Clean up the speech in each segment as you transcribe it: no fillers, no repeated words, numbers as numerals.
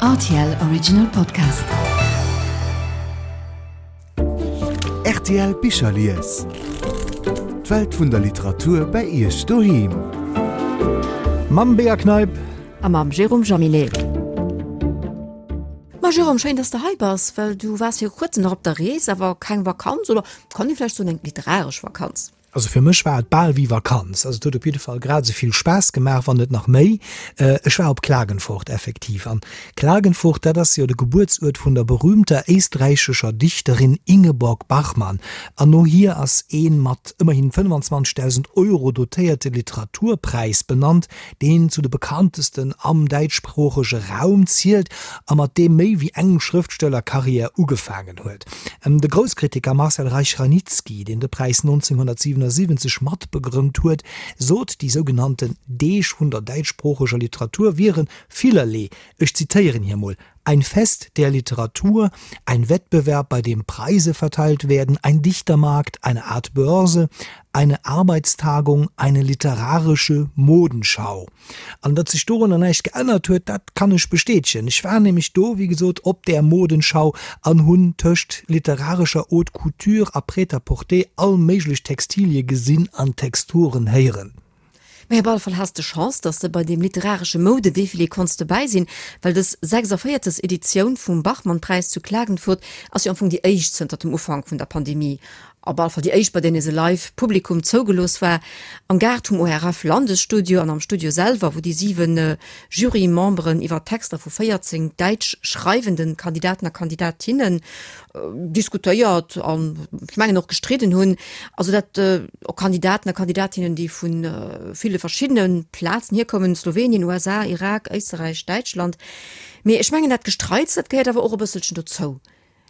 Rtl Original Podcast. Rtl Bicherlies. D'Welt vun der Literatur bei Iech doheem. Mam Bea Kneip. A mam Jérôme Jaminet. Ma Jérôme, schéin, dass de hei bass, well du waars viru kuerzem nach op der Rees, awer keng Vakanz, oder kann ee vläicht soen eng literaresch Vakanz? Also fir mech war et bal wéi Vakanz. Also et huet op jidde Fall grad esou vill Spaass gemaach, wann net nach méi. Ech war op Klagenfurt effektiv. An Klagenfurt, dat ass jo de Gebuertsuert vun der berühmter éisträichescher Dichterin Ingeborg Bachmann. An no hir ass ee mat ëmmerhin 25.000 Euro dotéierte Literaturpräis benannt, deen zu de bekanntesten am däitschsproochege Raum zielt a mat deem méi wéi eng Schrëftstellerkarriär ugefaangen huet. De Grousskritiker Marcel Reich-Ranicki, deen de Präis 1977 matbegrënnt huet, sot, déi sougenannten Deeg vun der däitschsproocheger Literatur wiere villerlee, ech zitéieren hie mol, Ein Fest der Literatur, ein Wettbewerb, bei dem Preise verteilt werden, ein Dichtermarkt, eine Art Börse, eine Arbeitstagung, eine literarische Modenschau. An datt sech dorunner näischt geännert huet, dat kann ech bestätegen. Ech war nämlech do, wéi gesot, op där Modenschau an hunn tëscht literarescher Haute Couture a Prêt-à-porter all méiglech Textilie gesinn an Texturen héieren. Mee op alle Fall has de Chance, dass de bei deem literaresche Moudedefilé konns dobäi sinn, well dës 46. Editioun vum Bachmann-Präis zu Klagenfurt ass jo am Fong déi éischt zënter dem Ufank vun der Pandemie. Op alle Fall déi éischt, bei där nees e Live Publikum zougelooss war. Am Gaart vum ORF Landesstudio an am Studio selwer, wou déi 7 Jury-Memberen iwwer d'Texter vu 14 däitsch schreiwende Kandidaten a Kandidatinnen diskutéiert an ech mengen och gestridden hunn. Also dat och Kandidaten a Kandidatinnen, déi vu ville verschiddene Plazen hierkommen, Slowenien, USA, Irak, Éisterräich, Däitschland. Mee ech mengen dat Gestreits, dat gehéiert awer och e bësselchen dozou.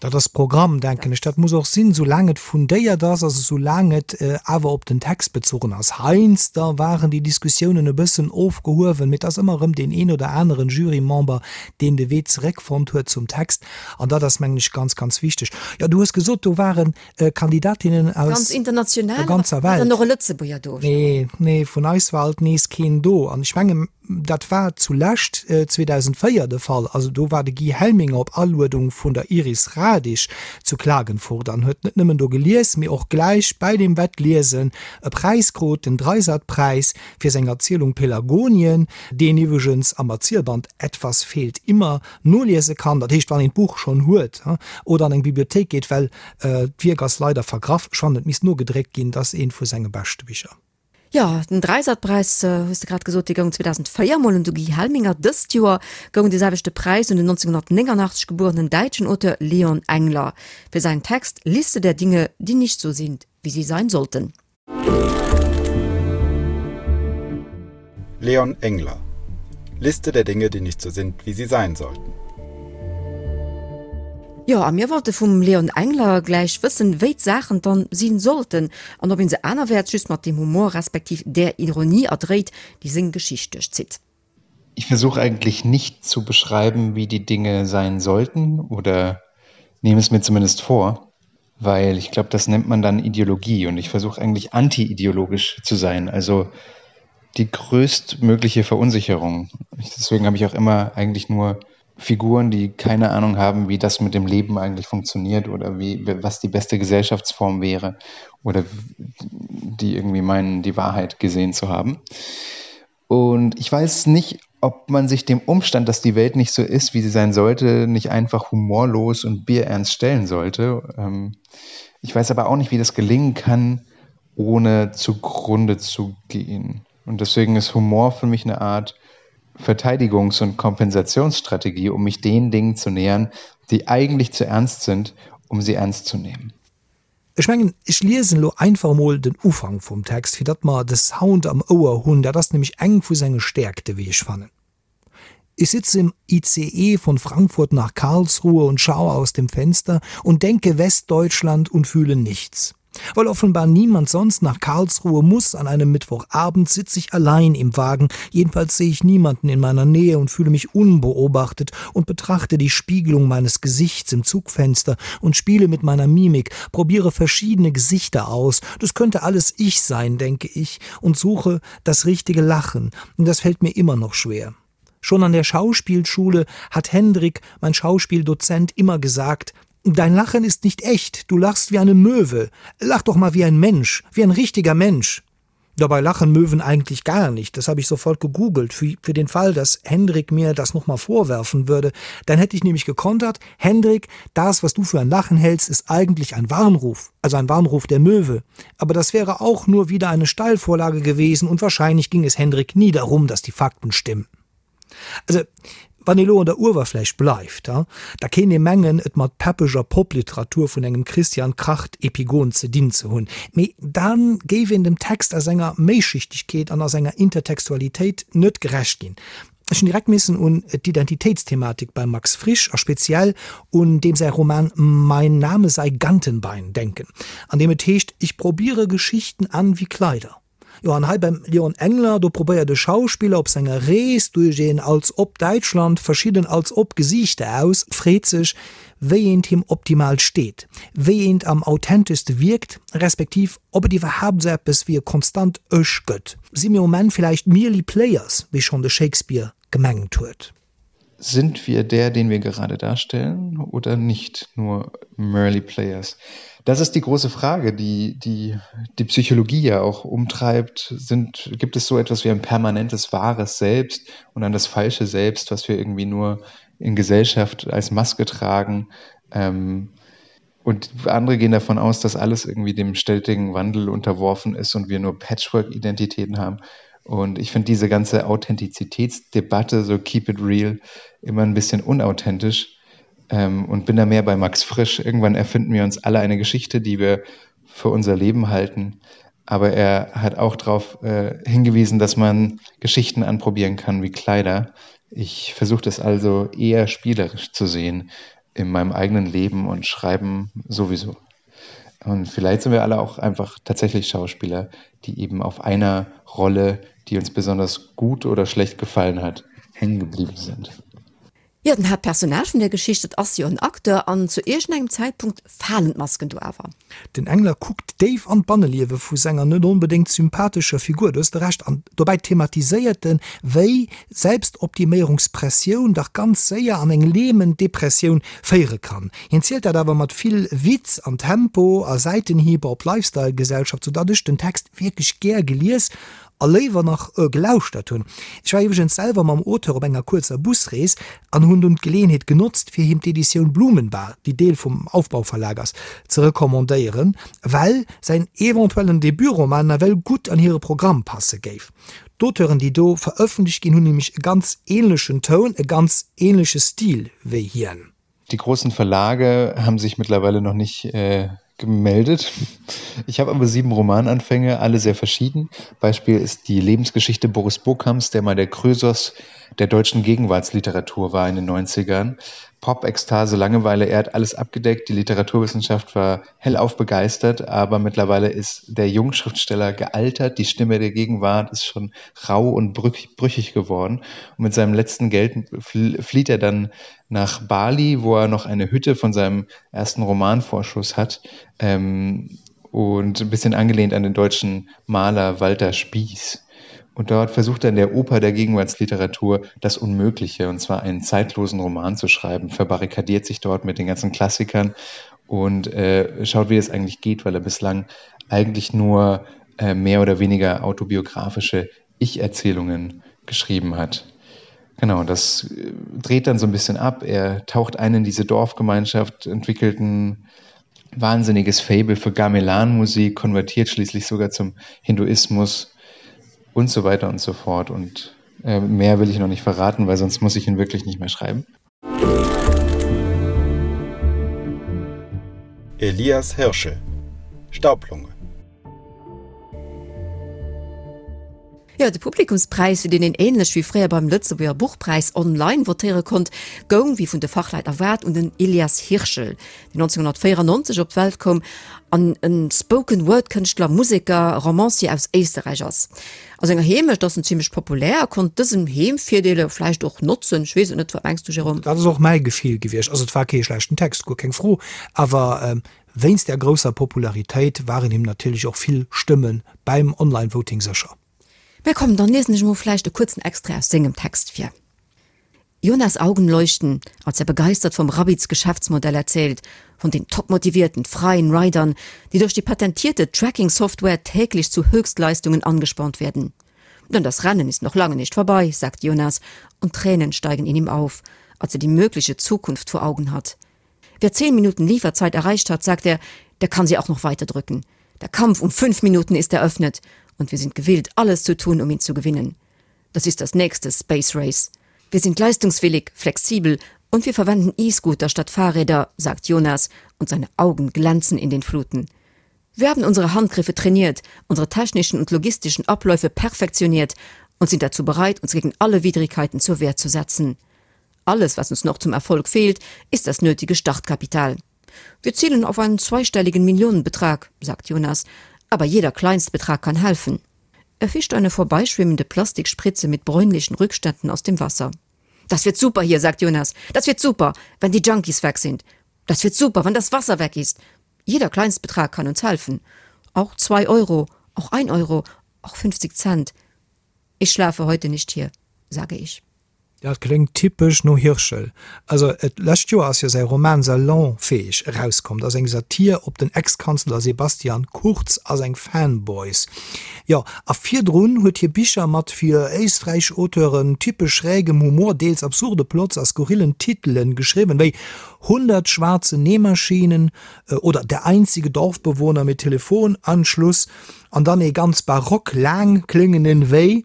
Dat ass Programm, denken ech. Dat muss och sinn, soulaang et fundéiert ass, also soulaang et awer op den Text bezogen ass. Heiansdo waren déi Diskussiounen e bëssen ofgehuewen, mee et ass ëmmer erëm deen een oder aneren Jurymember, deen de Wee zeréckfonnt huet zum Text. An dat ass, mengen ech, ganz, ganz wichteg. Jo, du hues gesot, do ware Kandidatinnen aus Ganz international, der ganzer war Welt. dann och e Lëtzebuerger do? Nee, nee, vun eis war alt nees keen do. An ech mengen, dat war zulescht 2004 de Fall. Also do war de Guy Helminger op Aluedung vun der Iris Radisch zu Klagenfurt an huet net nëmmen do gelies, mee och gläich bäi deem Wettliesen e Präis krut, den Dreisat-Präis fir seng Erzielung Pelagonien, deen iwwregens am Erzielband Etwas fehlt immer noliese kann, dat heescht wann een d'Buch schonn huet oder an eng Bibliothéik geet, well d'Wierk ass leider vergraff, ech fannen et misst nogedréckt ginn, dat ass eent vu senge beschte Bicher. Jo, den Dreisat-Präis, hues de grad gesot, dee goung 2004 mol un de Guy Helminger. Dëst Joer goung dee selwechte Präis un den 1989 gebuerenen däitschen Auteur Leon Engler fir säin Text Liste der Dinge, die nicht so sind, wie sie sein sollten. Leon Engler. Liste der Dinge, die nicht so sind, wie sie sein sollten. Jo, a mir wollte vum Leon Engler gläich wëssen, wéi d'Saachen dann sinn sollten an ob een se anerwäerts just mat deem Humor respektiv där Ironie erdréit, déi seng Geschicht duerchzitt. Ich versuche eigentlich nicht zu beschreiben, wie die Dinge sein sollten oder nehme es mir zumindest vor, weil ich glaube, das nennt man dann Ideologie und ich versuche eigentlich antiideologisch zu sein, also die größtmögliche Verunsicherung. Deswegen habe ich auch immer eigentlich nur Figuren, die keine Ahnung haben, wie das mit dem Leben eigentlich funktioniert oder wie, was die beste Gesellschaftsform wäre oder die irgendwie meinen, die Wahrheit gesehen zu haben. Und ich weiß nicht, ob man sich dem Umstand, dass die Welt nicht so ist, wie sie sein sollte, nicht einfach humorlos und bierernst stellen sollte. Ähm, ich weiß aber auch nicht, wie das gelingen kann, ohne zugrunde zu gehen. Und deswegen ist Humor für mich eine Art Verteidigungs- und Kompensationsstrategie, um mich den Dingen zu nähern, die eigentlich zu ernst sind, um sie ernst zu nehmen. Ech mengen, ech liesen elo einfach emol den Ufank vum Text, fir datt mer de Sound am Ouer hunn. Dat ass nämlech eng vu senge Stäerkte, wéi ech fannen. Ich sitze im ICE von Frankfurt nach Karlsruhe und schaue aus dem Fenster und denke Westdeutschland und fühle nichts. Weil offenbar niemand sonst nach Karlsruhe muss an einem Mittwochabend sitze ich allein im Wagen, jedenfalls sehe ich niemanden in meiner Nähe und fühle mich unbeobachtet und betrachte die Spiegelung meines Gesichts im Zugfenster und spiele mit meiner Mimik, probiere verschiedene Gesichter aus. Das könnte alles ich sein, denke ich, und suche das richtige Lachen, und das fällt mir immer noch schwer. Schon an der Schauspielschule hat Hendrik, mein Schauspieldozent, immer gesagt: Dein Lachen ist nicht echt, du lachst wie eine Möwe. Lach doch mal wie ein Mensch, wie ein richtiger Mensch. Dabei lachen Möwen eigentlich gar nicht. Das habe ich sofort gegoogelt für, für den Fall, dass Hendrik mir das noch mal vorwerfen würde. Dann hätte ich nämlich gekontert: Hendrik, das, was du für ein Lachen hältst, ist eigentlich ein Warnruf, also ein Warnruf der Möwe. Aber das wäre auch nur wieder eine Steilvorlage gewesen und wahrscheinlich ging es Hendrik nie darum, dass die Fakten stimmen. Also wann ee lo an der Uewerfläch bleift, da kéint ee mengen, et mat peppeger Popliteratur vun engem Christian Kracht-Epigon ze dinn ze hunn. Mee da géif een dem Text a senger Méischichtegkeet an a senger Intertextualitéit net gerecht ginn. Ech hunn direkt missen un d'Identitéitsthematik beim Max Frisch a speziell un deem säi Roman Mein Name sei Gantenbein denken, an deem et heescht, Ich probiere Geschichten an wie Kleider. Jo, an hei beim Leon Engler, do probéiert e Schauspiller op senger Rees duerch een als ob Däitschland verschidden als ob Gesiichter aus, freet sech, wéi eent him optimal steet, wéi eent am authenteschste wierkt, respektiv ob et iwwerhaapt esou eppes wéi e konstant Ech gëtt. Si mir um Enn villäicht merely players, wéi schonn de Shakespeare gemengt huet? Sind wir der, den wir gerade darstellen oder nicht nur merely players? Das ist die große Frage, die die, die Psychologie ja auch umtreibt. Sind, gibt es so etwas wie ein permanentes wahres Selbst und dann das falsche Selbst, was wir irgendwie nur in Gesellschaft als Maske tragen? Ähm, und andere gehen davon aus, dass alles irgendwie dem stetigen Wandel unterworfen ist und wir nur Patchwork-Identitäten haben. Und ich finde diese ganze Authentizitätsdebatte, so keep it real, immer ein bisschen unauthentisch ähm, und bin da mehr bei Max Frisch. Irgendwann erfinden wir uns alle eine Geschichte, die wir für unser Leben halten. Aber er hat auch darauf äh, hingewiesen, dass man Geschichten anprobieren kann wie Kleider. Ich versuche das also eher spielerisch zu sehen in meinem eigenen Leben und Schreiben sowieso. Und vielleicht sind wir alle auch einfach tatsächlich Schauspieler, die eben auf einer Rolle, die uns besonders gut oder schlecht gefallen hat, hängen geblieben sind. Jo, den Haaptpersonnage vun der Geschicht, dat ass jo en Acteur, an zu iergendengem Zäitpunkt falen d'Masken do awer. Den Engler kuckt déif an d'Banneliewe vu senger net onbedéngt sympathescher Figur, do hues de Recht, an dobäi thematiséiert en, wéi Selbstoptiméierungspressioun dach ganz séier an eng lähmend Depressioun féiere kann. Hien zielt dat awer mat vill Witz an Tempo a Säitenhiber op d'Lifestyle-Gesellschaft, sou datt ech den Text wierklech gär gelies a léiwer nach gelauschtert hunn. Ech war iwwregens selwer mam Auteur op enger kuerzer Busrees an hunn dunn d'Geleeënheet genotzt, fir him d'Editioun Blumenbar, déi Deel vum Aufbau-Verlag ass, ze recommandéieren, well säin eventuellen Debutroman nawell gutt an hire Programm passe géif. D'Auteuren, déi do verëffentlecht ginn, hunn nämlech e ganz änlechen Toun, e ganz änleche Stil wéi hien. Die großen Verlage haben sich mittlerweile noch nicht äh, gemeldet. Ich habe aber sieben Romananfänge, alle sehr verschieden. Beispiel ist die Lebensgeschichte Boris Bokams, der mal der Krösos der deutschen Gegenwartsliteratur war in den 90ern. Pop, Ekstase, Langeweile, er hat alles abgedeckt. Die Literaturwissenschaft war hellauf begeistert, aber mittlerweile ist der Jungschriftsteller gealtert. Die Stimme der Gegenwart ist schon rau und brüchig geworden. Und mit seinem letzten Geld flieht er dann nach Bali, wo er noch eine Hütte von seinem ersten Romanvorschuss hat. Ähm, und ein bisschen angelehnt an den deutschen Maler Walter Spieß. Und dort versucht er in der Oper der Gegenwartsliteratur das Unmögliche, und zwar einen zeitlosen Roman zu schreiben, verbarrikadiert sich dort mit den ganzen Klassikern und äh, schaut, wie es eigentlich geht, weil er bislang eigentlich nur äh, mehr oder weniger autobiografische Ich-Erzählungen geschrieben hat. Genau, das äh, dreht dann so ein bisschen ab. Er taucht ein in diese Dorfgemeinschaft, entwickelt ein wahnsinniges Faible für Gamelan-Musik, konvertiert schließlich sogar zum Hinduismus und so weiter und so fort. Und äh, mehr will ich noch nicht verraten, weil sonst muss ich ihn wirklich nicht mehr schreiben. Elias Hirschel Staublunge. Jo, de Publikumspräis, fir deen een ähnlech wéi fréier beim Lëtzebuerger Buchpräis online votéiere konnt, goung, wéi vun de Fachleit erwaart, un den Elias Hirschel, deen 1994 op d'Welt koum an e Spoken-Word-Kënschtler, Museker, Romancier aus Éisterräich ass. A senger Heemecht ass en zimmlech populär a konnt dësen Heemvirdeele vläicht och notzen. Ech weess et net, wat mengs du, Jérôme? Dat ass och mäi Gefill gewiescht. Also et war kee schlechten Text, guer keng Fro, awer Wéinst där grousser Popularitéit waren him natierlech och vill Stëmme bäim Online-Voting sécher. Mä komm, dann liesen ech emol vläicht e kuerzen Extrait aus sengem Text vir. Jonas Augen leuchten, als er begeistert vom Rabbits Geschäftsmodell erzählt, von den topmotivierten, freien Ridern, die durch die patentierte Tracking-Software täglich zu Höchstleistungen angespornt werden. Denn das Rennen ist noch lange nicht vorbei, sagt Jonas, und Tränen steigen in ihm auf, als er die mögliche Zukunft vor Augen hat. Wer zehn Minuten Lieferzeit erreicht hat, sagt er, der kann sie auch noch weiter drücken. Der Kampf um fünf Minuten ist eröffnet und wir sind gewillt, alles zu tun, um ihn zu gewinnen. Das ist das nächste Space Race. Wir sind leistungswillig, flexibel und wir verwenden E-Scooter statt Fahrräder, sagt Jonas und seine Augen glänzen in den Fluten. Wir haben unsere Handgriffe trainiert, unsere technischen und logistischen Abläufe perfektioniert und sind dazu bereit, uns gegen alle Widrigkeiten zur Wehr zu setzen. Alles, was uns noch zum Erfolg fehlt, ist das nötige Startkapital. Wir zielen auf einen zweistelligen Millionenbetrag, sagt Jonas, aber jeder Kleinstbetrag kann helfen. Er fischt eine vorbeischwimmende Plastikspritze mit bräunlichen Rückständen aus dem Wasser. Das wird super hier, sagt Jonas. Das wird super, wenn die Junkies weg sind. Das wird super, wenn das Wasser weg ist. Jeder Kleinstbetrag kann uns helfen. Auch zwei Euro, auch ein Euro, auch 50 Cent. Ich schlafe heute nicht hier, sage ich. Dat kléngt typesch no Hirschel. Also et lescht Joer ass jo säi Roman Salonfähig erauskomm. Dat ass eng Satir op den Ex-Kanzler Sebastian Kurz a seng Fanboys. Jo, a virdrun huet hie Bicher mat fir éisträichesch Auteuren typesch schrägem Humor, deels absurde Plots a skurrillen Titelen geschriwwen, wéi 100 schwarze Nähmaschinen oder Der einzige Dorfbewohner mit Telefonanschluss an dann ee ganz barock laang kléngenden wéi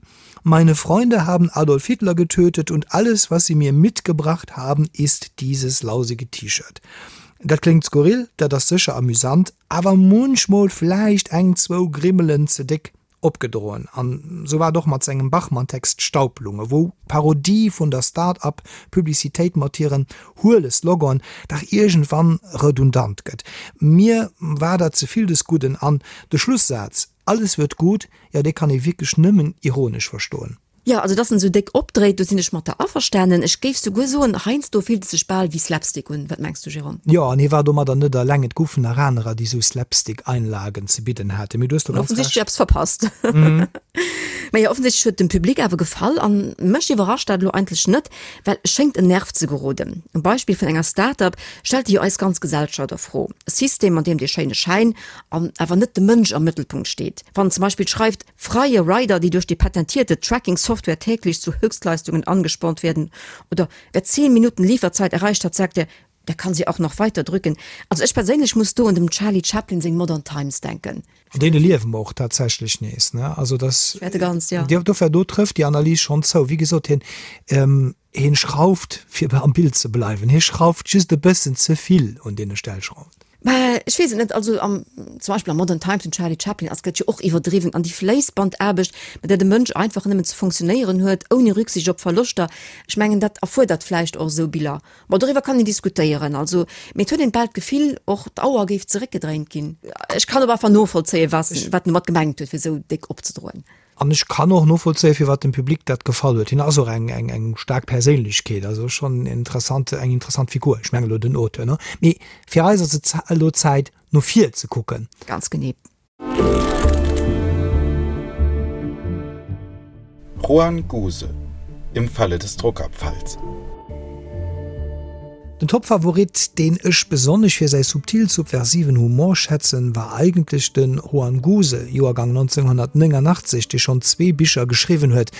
Meine Freunde haben Adolf Hitler getötet und alles, was sie mir mitgebracht haben, ist dieses lausige T-Shirt. Dat kléngt skurril, dat ass sécher amüsant, awer munchmol vläicht eng, zwou Grimmelen ze déck opgedroen. An sou war et och mat sengem Bachmann-Text Staublunge, wou d'Parodie vun der Start-up-Publicitéit mat hiren huele Slogan dach iergendwann redundant gëtt. Mir war dat ze vill des Gudden an de Schlussaz, Alles wird gut, jo dee kann ee wierklech nëmmen ironesch verstoen. Jo, also dass en esou déck opdréit, do sinn ech mat der averstanen. Ech géif souguer soen, heiansdo fillt et sech bal wéi Slapstick un. Wat mengs du, Jérôme? Jo, an hie war domadder net eleng. Et goufen nach anerer, déi esou Slapstick-Einlagen ze bidden haten. Mee du hues do ganz Offensichtlech Recht. eppes verpasst. Mä jo, offensichtlech huet dem Public awer gefall. An mech iwwerrascht dat elo eigentlech net, well e schéngt en Nerv ze geroden. Um Beispill vun enger Start-up stellt e jo eis ganz Gesellschaft a Fro. E System, an deem dee schéine Schäin an awer net de Mënsch am Mëttelpunkt steet. Wann en zum Beispill schreift, Freie Rider, die durch die patentierte Tracking-Software täglich zu Höchstleistungen angespornt werden oder Wer 10 Minuten Lieferzeit erreicht hat, sagt er, der kann sie auch noch weiter drücken. Also ech perséinlech muss do un dem Charlie Chaplin seng Modern Times denken. An deene liewe mer och tatsächlech nees, ne? Also dass, Wäerte ganz, ja. dofir, do trëfft déi Analys schonn zou. Wéi gesot, hien, hien schrauft, fir am Bild ze bleiwen, hie schrauft just e bëssen ze vill un deene Stellschrauwen. Mä ech weess et net. Also am, zum Beispill am Modern Times vum Charlie Chaplin ass gëtt jo och iwwerdriwwen an déi Fléissbandaarbecht, mat där de Mënsch einfach nëmmen ze funktionéieren huet, ouni Rücksicht op Verloschter, ech mengen, dat erfuerdert vläicht och esou Biller. Bon, doriwwer kann een diskutéieren, also, mee et huet een bal d'Gefill, och d'Auer géif zeréckgedréint ginn. Ech kann op einfach novollzéien, wat en domat gemengt huet, fir esou déck opzedroen. An ech kann och novollzéien, firwat dem Public dat gefall huet. Hien ass och eng, eng, eng staark Perséinlechkeet, also schonn interessant, eng interessant Figur. Ech mengen elo den Auteur, ne? Mee fir eis ass et elo Zäit, no vir ze kucken. Ganz genee. Juan Guse, Im Falle des Druckabfalls. Den Topfavorit, deen ech besonnesch fir säi subtil subversiven Humor schätzen, war eigentlech de Juan Guse, Joergang 1989, dee schonn zwee Bicher geschriwwen huet,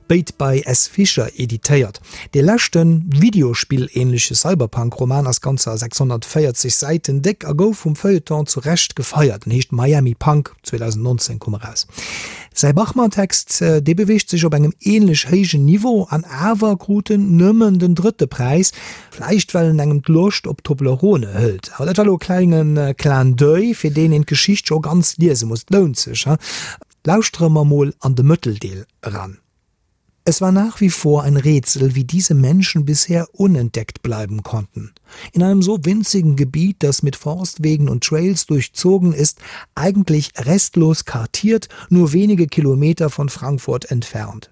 béid bei S. Fischer editéiert. Dee leschten, Videospill-ähnleche Cyberpunk-Roman ass ganzer 640 Säiten déck a gouf vum Feuilleton zu Recht gefeiert. En heescht Miami Punk. 2019 koum eraus. Säi Bachmann-Text, dee beweegt sech op engem ähnlech héijen Niveau an awer krut en nëmmen den drëtte Präis, vläicht well en engem d'Loscht op Toblerone hëlt. Awer dat war elo e klenge Clin d'oeil, fir deen een d'Geschicht scho ganz liese muss. Et lount sech, he? Lauschtere mer mol an de Mëtteldeel eran. Es war nach wie vor ein Rätsel, wie diese Menschen bisher unentdeckt bleiben konnten. In einem so winzigen Gebiet, das mit Forstwegen und Trails durchzogen ist, eigentlich restlos kartiert, nur wenige Kilometer von Frankfurt entfernt.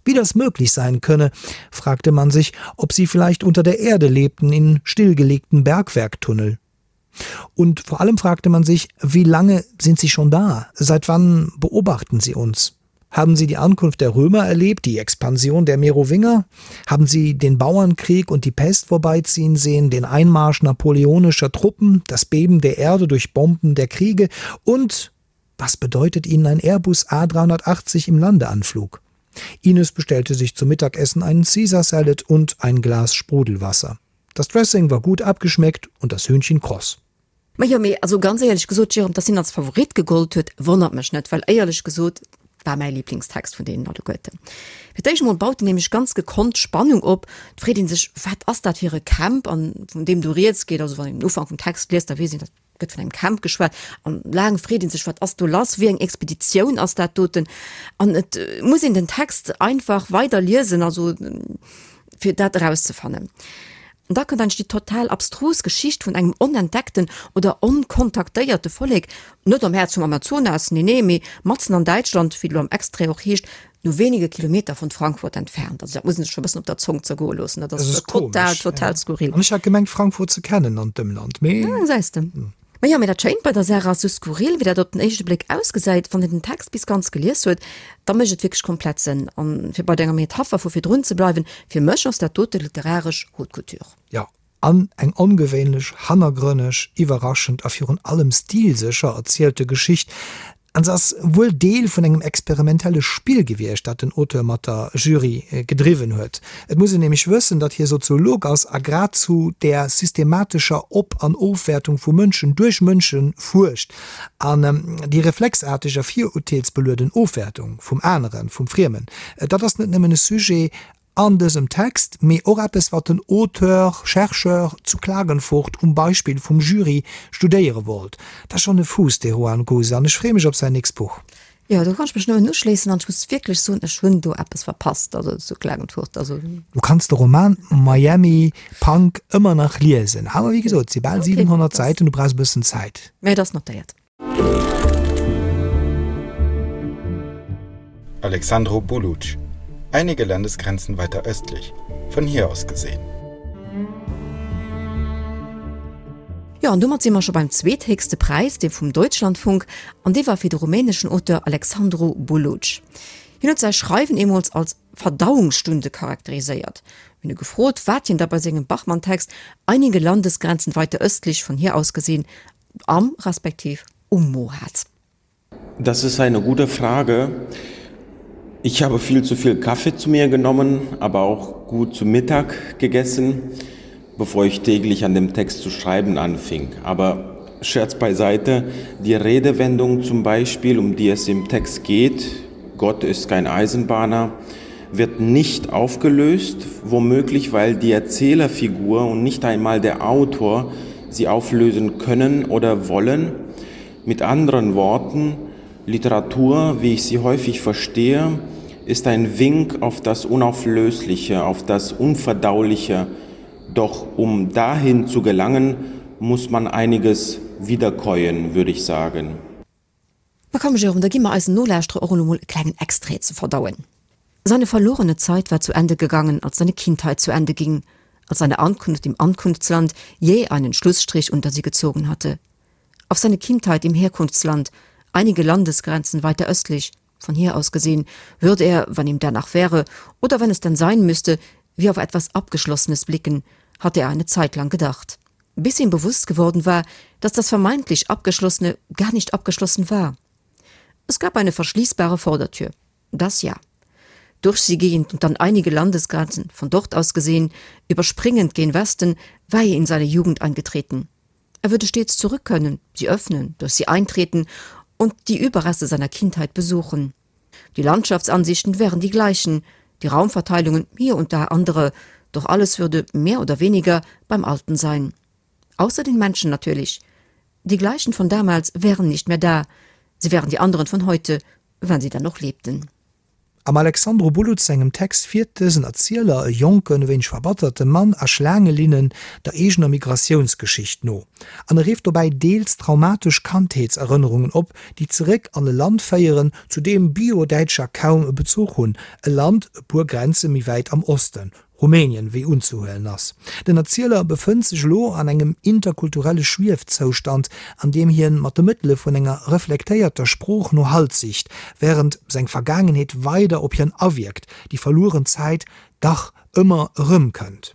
Wie das möglich sein könne, fragte man sich, ob sie vielleicht unter der Erde lebten in stillgelegten Bergwerktunnel. Und vor allem fragte man sich, wie lange sind sie schon da? Seit wann beobachten sie uns? Haben sie die Ankunft der Römer erlebt, die Expansion der Merowinger? Haben sie den Bauernkrieg und die Pest vorbeiziehen sehen, den Einmarsch napoleonischer Truppen, das Beben der Erde durch Bomben der Kriege und was bedeutet ihnen ein Airbus A380 im Landeanflug? Ines bestellte sich zum Mittagessen einen Caesar Salad und ein Glas Sprudelwasser. Das Dressing war gut abgeschmeckt und das Hühnchen kross. Majo, mee also ganz éierlech gesot, Jérôme, dass hien als Favorit gegollt huet, wonnert mech net, well éierlech gesot war mäi Lieblingstext vun deenen alleguerten. Fir d'éischt emol baut en nämlech ganz gekonnt Spannung op. Et freet ee sech, wat ass dat fir e Camp, an vun deem do rieds geet. Also wann een den Ufank vum Text liest, da weess een, dat gëtt vun engem Camp geschwat. An laang freet ee sech, wat ass do lass, wéi eng Expeditioun ass dat doten? An et muss een den Text einfach weider liesen, also fir dat erauszefannen. An da kënnt eigentlech déi total abstrus Geschicht vun engem onentdeckten oder onkontaktéierte Vollek, net am Häerz vum Amazonas, nee nee, mee matzen an Däitschland, wéi et elo am Extrait och heescht, nur wenige Kilometer von Frankfurt entfernt. Also dat muss een sech scho e bëssen op der Zong zergoe loossen, dat ass total, total skurril. An ech hat gemengt Frankfurt ze kennen an d'Ëmland, mee. Ah, gesäis de. Ma jo, mee dat Schéint bei der Saach ass, sou skurril wéi dat op den éischte Bléck ausgesäit, wann een den Text bis ganz gelies huet, da mécht et wierklech komplett Sënn. An fir bei denger Metapher vu virdrun ze bleiwen, fir mech ass dat dote literaresch Haute Couture. Jo, an eng ongewéinlech, hannergrënneg, iwwerraschend a virun allem stilsécher erzielte Geschicht. An se ass wuel Deel vun engem experimentelle Spill gewiescht, dat den Auteur mat der Jury gedriwwen huet. Et muss een nämlech wëssen, datt hie Soziolog ass a grad zu där systematescher Op an Ofwäertung vu Mënschen duerch Mënsche fuerscht. An déi reflexaarteg a virurteelsbelueden Ofwäertung vum Aneren, vum Friemen, dat ass net nëmmen e Sujet an dësem Text, mee och eppes, wat den Auteur, Chercheur zu Klagenfurt um Beispill vum Jury studéiere wollt. Dat ass schonn e Fuuss, dee Juan Guse, an ech freeë mech op säin nächst Buch. Jo, do kann ech mech nëmmen uschléissen an ech muss wierklech soen, ech hunn do eppes verpasst, also zu Klagenfurt, also. Du kanns de Roman Miami Punk ëmmer nach liesen, awer wéi gesot, et si bal 700 Säiten, du brauchs e bëssen Zäit. Mä et ass notéiert. Alexandru Buluc, Einige Landesgrenzen weiter östlich, von hier aus gesehen. Jo, an domat si mer scho beim zweethéchste Präis, dee vum Deutschlandfunk, an dee war fir de rumäneschen Auteur Alexandru Buluc. Hien huet säi Schreiwen eemools als Verdauungsstunde charakteriséiert. Mir hunn e gefrot, wat hien da bei sengem Bachmann-Text Einige Landesgrenzen weiter östlich, von hier aus gesehen am respektiv um Mo hat. Das ist eine gute Frage. Ich habe viel zu viel Kaffee zu mir genommen, aber auch gut zu Mittag gegessen, bevor ich täglich an dem Text zu schreiben anfing. Aber Scherz beiseite, die Redewendung zum Beispiel, um die es im Text geht, Gott ist kein Eisenbahner, wird nicht aufgelöst, womöglich weil die Erzählerfigur und nicht einmal der Autor sie auflösen können oder wollen. Mit anderen Worten, Literatur, wie ich sie häufig verstehe, ist ein Wink auf das Unauflösliche, auf das Unverdauliche. Doch um dahin zu gelangen, muss man einiges wiederkäuen, würde ich sagen. Ma komm Jérôme, da gi mer eisen Nolauschterer och elo mol e klengen Extrait ze verdauen. Seine verlorene Zeit war zu Ende gegangen, als seine Kindheit zu Ende ging, als seine Ankunft im Ankunftsland jäh einen Schlussstrich unter sie gezogen hatte. Auf seine Kindheit im Herkunftsland, einige Landesgrenzen weiter östlich, von hier aus gesehen, würde er, wann ihm danach wäre, oder wenn es denn sein müsste, wie auf etwas Abgeschlossenes blicken, hatte er eine Zeit lang gedacht. Bis ihm bewusst geworden war, dass das vermeintlich Abgeschlossene gar nicht abgeschlossen war. Es gab eine verschließbare Vordertür. Das ja. Durch sie gehend und dann einige Landesgrenzen, von dort aus gesehen, überspringend gen Westen, war er in seine Jugend eingetreten. Er würde stets zurück können, sie öffnen, durch sie eintreten und die Überreste seiner Kindheit besuchen. Die Landschaftsansichten wären die gleichen, die Raumverteilungen hier und da andere, doch alles würde mehr oder weniger beim Alten sein. Außer den Menschen natürlich. Die gleichen von damals wären nicht mehr da, sie wären die anderen von heute, wenn sie dann noch lebten. Am Alexandru Buluc sengem Text fiert dësen Erzieler, e jonken, e wéineg verbatterte Mann, a Schlaangelinnen der eegener Migratiounsgeschicht no. An e rifft dobäi deels traumatesch Kandheetserënnerungen op, déi zeréck an e Land féieren, zu deem Bio-Däitscher kaum e Bezuch hunn, e Land e puer Grenze méi wäit am Osten, Russland. Rumänien, wéi unzehuelen ass. Den Erzieler befënnt sech elo an engem interkulturelle Schwiefzoustand, an deem hien mat de Mëttele vun enger reflektéierter Sprooch no Halt sicht, wärend seng Vergaangenheet weider op hien awierkt, déi verlueren Zäit dach ëmmer erëmkënnt.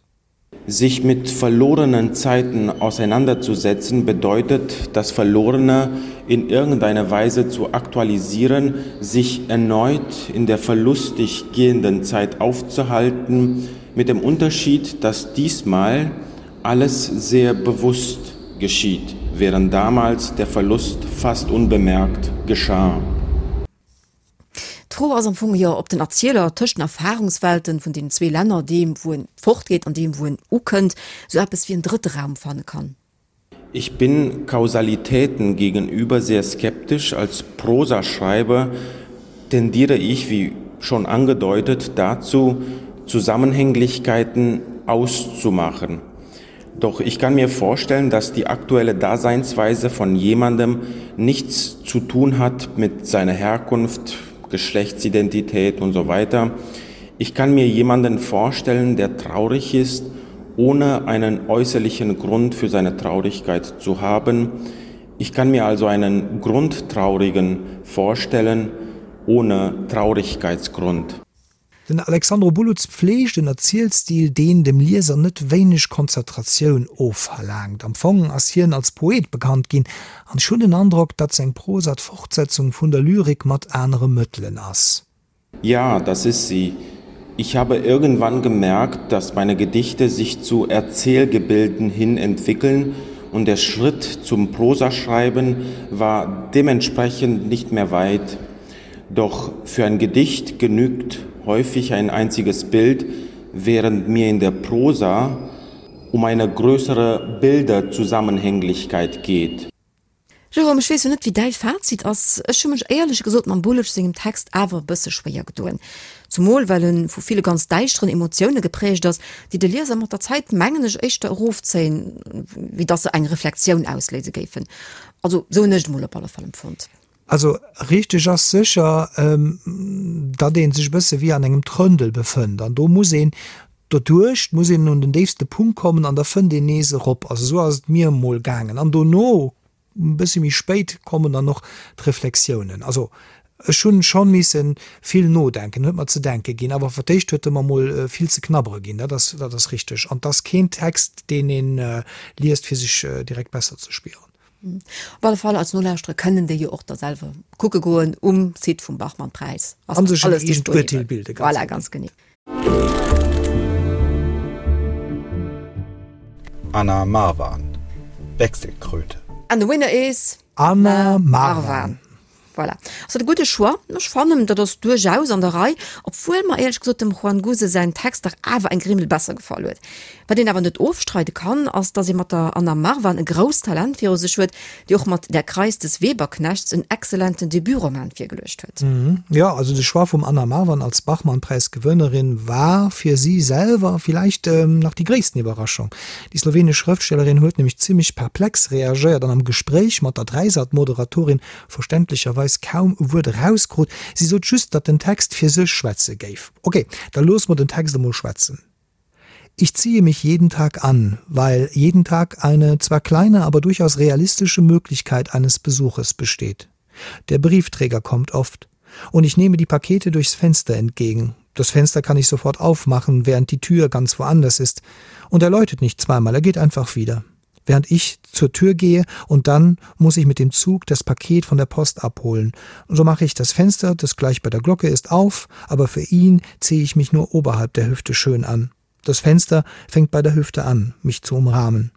Sich mit verlorenen Zeiten auseinanderzusetzen, bedeutet, das Verlorene in irgendeiner Weise zu aktualisieren, sich erneut in der verlustig gehenden Zeit aufzuhalten, mit dem Unterschied, dass diesmal alles sehr bewusst geschieht, während damals der Verlust fast unbemerkt geschah. D'Fro ass am Fong jo, ob den Erzieler tëscht den Erfahrungswelten vun deenen zwee Länner, deem wou en fortgeet an deem wou en ukënnt, sou eppes wéi en drëtte Raum fanne kann. Ich bin Kausalitäten gegenüber sehr skeptisch. Als Prosaschreiber tendiere ich, wie schon angedeutet, dazu, Zusammenhänglichkeiten auszumachen. Doch ich kann mir vorstellen, dass die aktuelle Daseinsweise von jemandem nichts zu tun hat mit seiner Herkunft, Geschlechtsidentität und so weiter. Ich kann mir jemanden vorstellen, der traurig ist, ohne einen äußerlichen Grund für seine Traurigkeit zu haben. Ich kann mir also einen Grundtraurigen vorstellen ohne Traurigkeitsgrund. Den Alexandru Buluț pfleegt en Erzielstil, deen dem Lieser net wéineg Konzentratioun ofverlaangt. Am Fong ass hien als Poet bekannt ginn, an ech hunn den Androck, datt seng Prosa d'Fortsetzung vun der Lyrik mat anere Mëttelen ass. Ja, das ist sie. Ich habe irgendwann gemerkt, dass meine Gedichte sich zu Erzählgebilden hin entwickeln und der Schritt zum Prosaschreiben war dementsprechend nicht mehr weit. Doch für ein Gedicht genügt häufig ein einziges Bild, während mir in der Prosa um eine größere Bilderzusammenhänglichkeit geht. Jérôme, ech weess jo net wéi däi Fazit ass, ech hu mech éierlech gesot mam Buluc sengem Text awer e bësse schwéier gedoen. Zumol well e vu ville ganz däischteren Emotioune geprägt ass, déi de Lieser mat der Zäit, mengen ech, éischter erofzéien, wéi dass se eng Reflexioun ausléise géifen. Also sou hunn ech et emol op alle Fall empfonnt. Also richteg ass sécher, datt ee sech e bësse wéi an engem Trëndel befënnt an do muss een doduerch, muss een un den déifste Punkt kommen an da fënnt een nees erop. Also esou ass et mir emol gaangen an dono, e bësse méi spéit, kommen dann och d'Reflexiounen. Also ech hunn scho misse vill nodenken, huet mer ze denke ginn, awer fir d'éischt huet e mer mol vill ze knabbere ginn, dat ass, dat ass richteg. An 't ass keen Text, deen ee liest fir sech direkt besser ze spieren. Op alle Fall als Nolauschterer kënnen déi jo och da selwer kucke goen um Site vum Bachmann-Präis. An sech en eegent Urteel bilden. Voilà, ganz genee. Anna Marwan, Wechselkröte. And the winner is. Anna Marwan. Voilà. Ass dat e gudde Choix? Ech fannen, dat ass duerchaus an der Rei, obwuel mer éierlech gesot dem Juan Guse säin Text dach awer eng Grimmel besser gefall huet. Wat een awer net ofstreide kann, ass, dass ee mat der Anna Marwan e grousst Talent viru sech huet, déi och mat Der Kreis des Weberknechts en exzellenten Debutroman virgeluecht huet. Jo, also de Choix vum Anna Marwan als Bachmann-Präis-Gewënnerin war fir si selwer villäicht nach déi gréissten Iwwerraschung. Déi slowenesch Schrëftstellerin huet nämlech zimmlech perplex reagéiert an am Gespréich mat der Dreisat-Moderatorin verständlecherweis kaum e Wuert erauskrut. Si sot just, datt den Text fir sech schwätze géif. Ok, da loosse mer den Text emol schwätzen. Ich ziehe mich jeden Tag an, weil jeden Tag eine zwar kleine, aber durchaus realistische Möglichkeit eines Besuches besteht. Der Briefträger kommt oft und ich nehme die Pakete durchs Fenster entgegen. Das Fenster kann ich sofort aufmachen, während die Tür ganz woanders ist. Und er läutet nicht zweimal, er geht einfach wieder während ich zur Tür gehe und dann muss ich mit dem Zug das Paket von der Post abholen. So mache ich das Fenster, das gleich bei der Glocke ist, auf, aber für ihn ziehe ich mich nur oberhalb der Hüfte schön an. Das Fenster fängt bei der Hüfte an, mich zu umrahmen.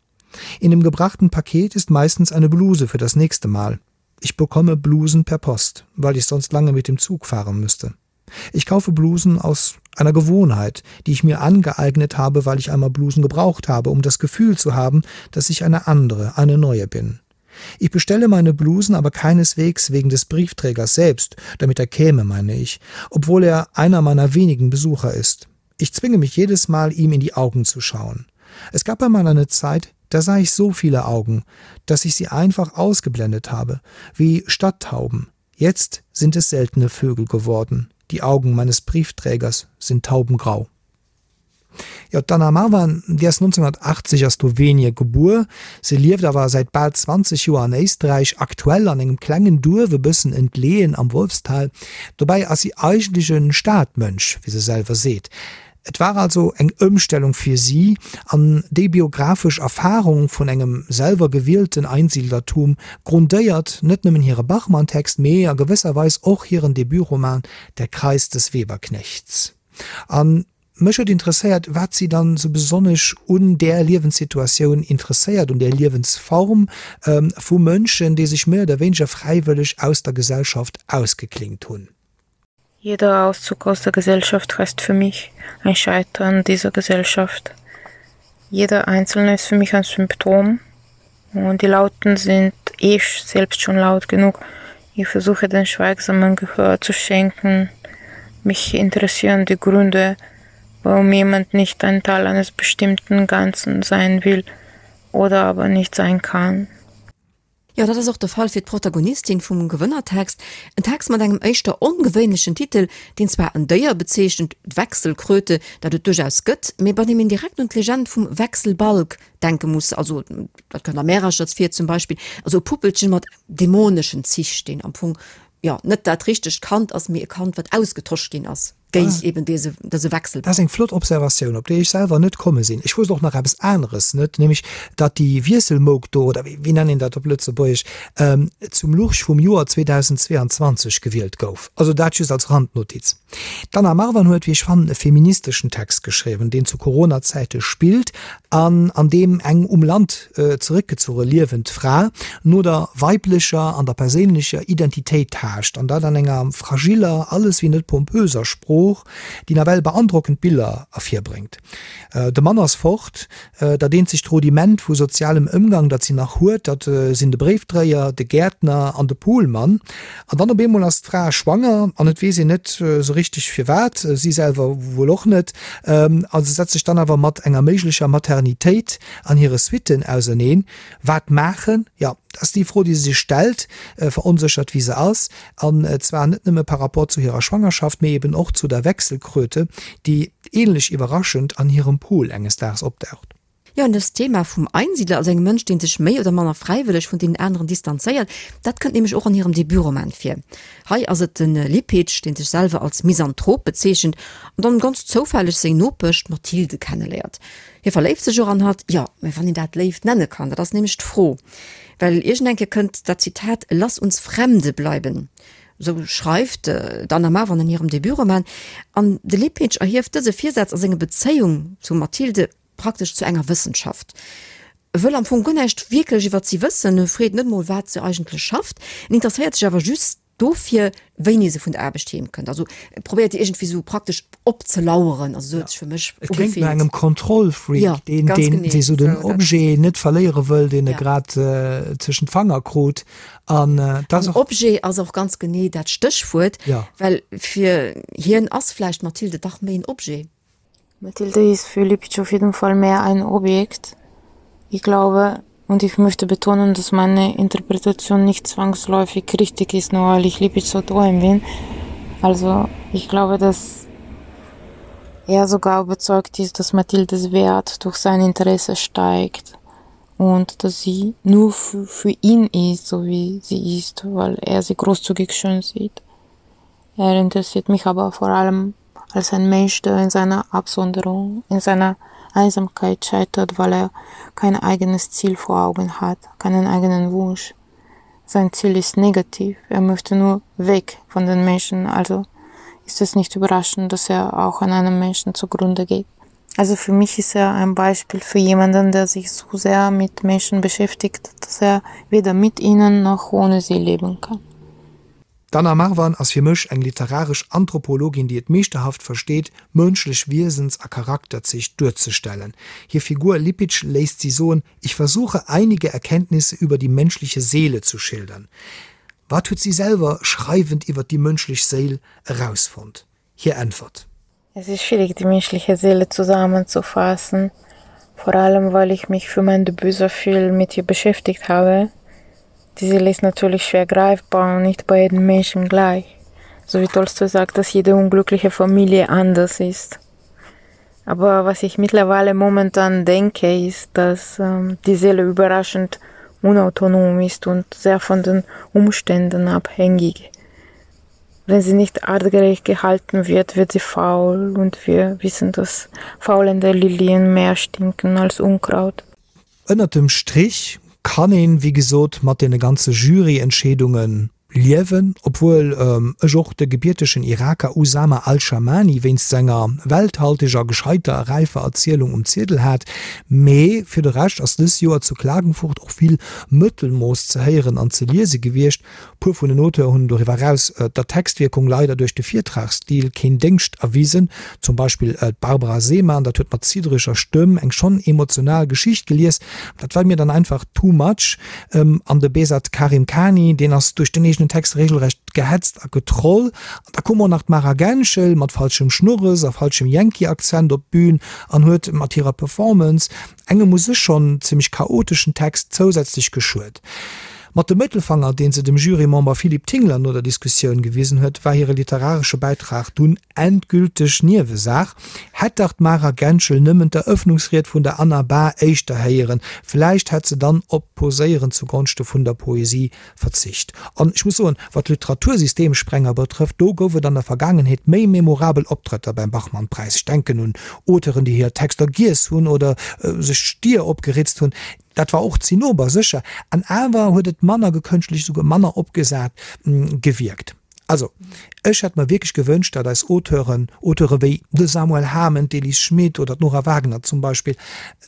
In dem gebrachten Paket ist meistens eine Bluse für das nächste Mal. Ich bekomme Blusen per Post, weil ich sonst lange mit dem Zug fahren müsste. Ich kaufe Blusen aus einer Gewohnheit, die ich mir angeeignet habe, weil ich einmal Blusen gebraucht habe, um das Gefühl zu haben, dass ich eine andere, eine neue bin. Ich bestelle meine Blusen aber keineswegs wegen des Briefträgers selbst, damit er käme, meine ich, obwohl er einer meiner wenigen Besucher ist. Ich zwinge mich jedes Mal, ihm in die Augen zu schauen. Es gab einmal eine Zeit, da sah ich so viele Augen, dass ich sie einfach ausgeblendet habe, wie Stadttauben. Jetzt sind es seltene Vögel geworden. Die Augen meines Briefträgers sind taubengrau. Jo, d'Anna Marvan, déi ass 1980 a Slowenie gebuer. Se lieft awer säit bal 20 Joer an Éisträich, aktuell an engem klengen Duerf e bëssen entleeën am Wolfstal. Dobäi ass si eigentlech e Stadmënsch, wéi se selwer seet. Et war also eng Ëmstellung fir si, an déi biographesch Erfarung vun engem selwer gewielten Einsiedlertum grundéiert net nëmmen hire Bachmann-Text, mee a gewësser Weis och hiren Debutroman Der Kreis des Weberknechts. A mech huet interesséiert, wat si dann esou besonnesch un där Liewenssituatioun interesséiert, un där Liewensform vu Mënschen, déi sech méi oder wéineger fräiwëlleg aus der Gesellschaft ausgeklinkt hunn. Jeder Auszug aus der Gesellschaft heißt für mich ein Scheitern dieser Gesellschaft. Jeder Einzelne ist für mich ein Symptom und die Lauten sind eh selbst schon laut genug. Ich versuche den Schweigsamen Gehör zu schenken. Mich interessieren die Gründe, warum jemand nicht ein Teil eines bestimmten Ganzen sein will oder aber nicht sein kann. Jo, dat ass och de Fall fir d'Protagonistin vum Gewënnertext. En Text mat engem éischter ongewéinlechen Titel, deen zwar en Déier bezeechent, d'Wechselkröte, dat et duerchaus gëtt, mee bei deem een direkt un d'Legend vum Wechselbalg denke muss, also dat kënnt a Märerchers vir zum Beispill, also e Puppelchen mat dämoneschen Zich, deen am Fong, jo, net dat richtegt Kand ass, mee e Kand, wat ausgetosch ginn ass. géint eben dese, dese Wechsel. Dat ass eng flott Observatioun, op déi ech selwer net komme sinn. Ech wousst och nach eppes aneres net, nämlech datt déi Wiesselmouk do, oder wéi nennt een dat op Lëtzebuergesch, zum Lurch vum Joer 2022 gewielt gouf. Also dat just als Randnotiz. D'Anna Marwan huet, wéi ech fannen, e feministeschen Text geschriwwen, deen zu Corona-Zäite spillt an an deem eng um Land zeréckgezuche liewend Fra no der weiblecher an der perséinlecher Identitéit taascht, an dat an enger fragiller, alles wéi net pompöser Sprooch, déi nawell beandrockend Biller ervirbréngt. De Mann ass fort, dat eenzegt Rudiment vu sozialem Ëmgang, dat si nach huet, dat sinn de Bréifdréier, de Gäertner an de Poolmann. An dann op eemol ass d'Fra schwanger an et weess een net esou richteg firwat, si selwer wuel och net, a se setzt sech dann awer mat enger méiglecher Maternitéit an hire Suitten auserneen. Wat maachen? Jo, dat ass déi Fro, déi se sech stellt, veronséchert wéi se ass. An zwar net nëmme par rapport zu hirer Schwangerschaft, mee eben och zu der Wechselkröte, déi ähnlech iwwerraschend an hirem Pool enges Daags opdaucht. Jo, an dëst Thema vum Einsiedler, also engem Mënsch, dee sech méi oder manner fräiwëlleg vun deenen aneren distanzéiert, dat kënnt nämlech och an hirem Debutroman vir. Hei ass et de Lipitsch, dee sech selwer als Misanthrop bezeechent an dann ganz zoufälleg seng Nopesch, d'Mathilde, kenneléiert. Hie verléift sech och an hatt, jo, mä wann een dat Léift nenne kann, dat ass nämlech d'Fro. Well iergend eng Kéier kënnt dat Zitat Lass uns Fremde bleiben, esou schreift d'Anna Marwan an hirem Debutroman, an de Lipitsch erhieft dëse Virsaz a senge Bezéiung zum Mathilde praktesch zu enger Wëssenschaft. E wëll am Fong guer näischt wierklech iwwert si wëssen, e freet net mol, wat se eigentlech schafft, en interesséiert sech awer just dofir, wéini se vun der Aarbecht heem kënnt. Also e probéiert déi iergendwéi sou praktesch opzelaueren, also sou huet sech fir mech Et kléngt no engem Kontrollfreak, ja, deen, ganz deen, dee sou den Objet net verléiere wëll, deen e grad tëschent d'Fanger krut. An dat ass och. Objet ass och ganz genee dat Stéchwuert, well fir hien ass vläicht d'Mathilde dach méi en Objet. Mathilde ist für Lipitsch auf jeden Fall mehr ein Objekt. Ich glaube und ich möchte betonen, dass meine Interpretation nicht zwangsläufig richtig ist, nur weil ich Lipitsch Autorin bin. Also ich glaube, dass er sogar überzeugt ist, dass Mathildes Wert durch sein Interesse steigt und dass sie nur für, für ihn ist, so wie sie ist, weil er sie großzügig schön sieht. Er interessiert mich aber vor allem als ein Mensch, der in seiner Absonderung, in seiner Einsamkeit scheitert, weil er kein eigenes Ziel vor Augen hat, keinen eigenen Wunsch. Sein Ziel ist negativ, er möchte nur weg von den Menschen, also ist es nicht überraschend, dass er auch an einem Menschen zugrunde geht. Also für mich ist er ein Beispiel für jemanden, der sich so sehr mit Menschen beschäftigt, dass er weder mit ihnen noch ohne sie leben kann. D'Anna Marwan ass fir mech eng literaresch Anthropologin, déi et meeschterhaft versteet, mënschlech Wiesens a Charakterzich duerzestellen. Hir Figur Lipitsch léisst si soen, Ich versuche einige Erkenntnisse über die menschliche Seele zu schildern. Wat huet si selwer schreiwend iwwer déi mënschlech Séil erausfonnt? Hir Äntwert. Es ist schwierig, die menschliche Seele zusammenzufassen, vor allem weil ich mich für mein Debüt so viel mit ihr beschäftigt habe. Die Seele ist natürlich schwer greifbar und nicht bei jedem Menschen gleich. So wie Tolstoi sagt, dass jede unglückliche Familie anders ist. Aber was ich mittlerweile momentan denke, ist, dass ähm, die Seele überraschend unautonom ist und sehr von den Umständen abhängig. Wenn sie nicht artgerecht gehalten wird, wird sie faul und wir wissen, dass faulende Lilien mehr stinken als Unkraut. Ënnert dem Strich kann een, wéi gesot, mat deene ganze Juryentscheedunge liewen, obwuel ech och de gebiertegen Iraker Usama Al-Shamani wéinst senger welthalteger, gescheiter a räifer Erzielung um Ziedel hat. Mee fir de Rescht ass dës Joer zu Klagenfurt och vill Mëttelmooss ze héieren an ze liese gewiescht. Puer vun den Auteur hunn doriwwer eraus der Textwierkung leider duerch de Virtragsstil keen Déngscht erwisen, zum Beispill d'Barbara Seemann, dat huet mat ziddereger Stëmm eng schonn emotional Geschicht gelies, dat war mir dann einfach too much. An de Behzad Karimkhani, deen ass duerch den eegenen Text regelrecht gehetzt a getroll. An da koum och nach d'Mara Genschel mat falschem Schnurres a falschem Yankee-Akzent op d'Bün an huet mat hirer Performance engem u sech schonn zimmlech chaoteschen Text zousätzlech geschuet. Mat dem Mëttelfanger, deen se dem Jurymember Philippe Tingler no der Diskussioun gewisen huet, war hire literaresche Bäitrag dunn endgülteg Niewesaach. Hätt dach d'Mara Genschel nëmmen d'Erëffnungsried vun der Anna Bahr éischter héieren, vläicht hätt se dann op d'Poséieren zugonschte vun der Poesie verzicht. An ech muss soen, wat Literatursystemsprenger betrëfft, do gouf et an der Vergaangenheet méi memorabel Optrëtter beim Bachmann-Präis. Ech denken un Auteuren, déi hir Texter giess hunn oder sech d'Stier opgeritzt hunn. Dat war och Zinnober, sécher, an awer huet et manner gekënschtelt, esouguer manner opgesat gewierkt. Also, ech hätt mer wierklech gewënscht, datt eis Auteuren, Auteure wéi de Samuel Hamen, d'Elise Schmit oder d'Nora Wagner zum Beispill,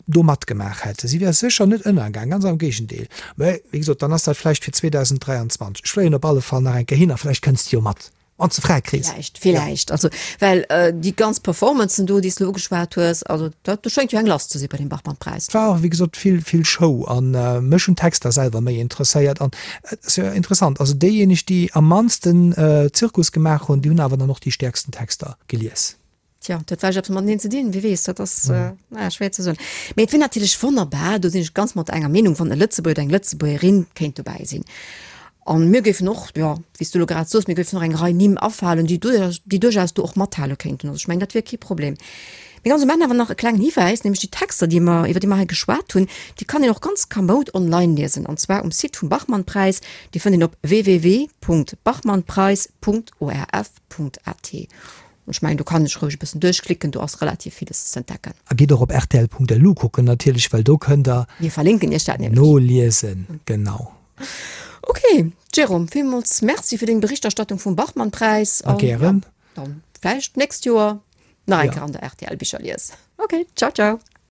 do matgemaach hätten. Si wäre sécher net ënnergaang, ganz am Géigendeel. Mä, wéi gesot, dann ass dat vläicht fir 2023. Ech fléien op alle Fall nach eng Kéier hin a vläicht kënns de jo mat. Wann s de fräi kriss. Villäicht, villäicht. Also, well déi ganz Performancen do, déi s de elo ugeschwat hues, also dat, do schéngt jo eng lass ze si bei deem Bachmann-Präis. Et war och, wéi gesot, vill, vill Show a mech hunn d'Texter selwer méi interesséiert. An et ass jo interessant, also déijéineg, déi am mannsten Zirkus gemaach hunn, déi hunn awer dann och déi stäerksten Texter gelies. Tja, dat huet vläicht eppes mateneen ze dinn, wie weess, dat ass naja, schwéier ze soen. Mee et wier natierlech wonnerbar, do sinn ech ganz mat enger Meenung, wann e Lëtzebuerger oder eng Lëtzebuergerin kéint dobäi sinn. An mir géifen och, jo, wéi s du elo grad soos, mir géifen och eng Rei Nimm afalen, déi duerchaus, déi duerchaus do och mathale kéinten. Also ech mengen, dat wier kee Problem. Mee ganz um Enn awer nach e klengen Hiwäis, nämlech déi Texter, déi mer, iwwer déi mer hei geschwat hunn, déi kann een och ganz kamoud online liesen, an zwar um Site vum Bachmann-Präis. Dee fënnt een op www.bachmannpreis.orf.at. Ech mengen, do kann ech roueg e bëssen duerchklicken, do ass relativ villes z'entdecken. A gitt och op rtl.lu kucken natierlech, well do kënnt der. Mir verlinken iech dat nämlech. Noliesen, genau. Ok, Jérôme, villmools Merci fir deng Berichterstattung vum Bachmann-Präis. A gären. Dann vläicht d'nächst Joer nach eng Kéier an der RTL Bicherlies. Ok, ciao, ciao.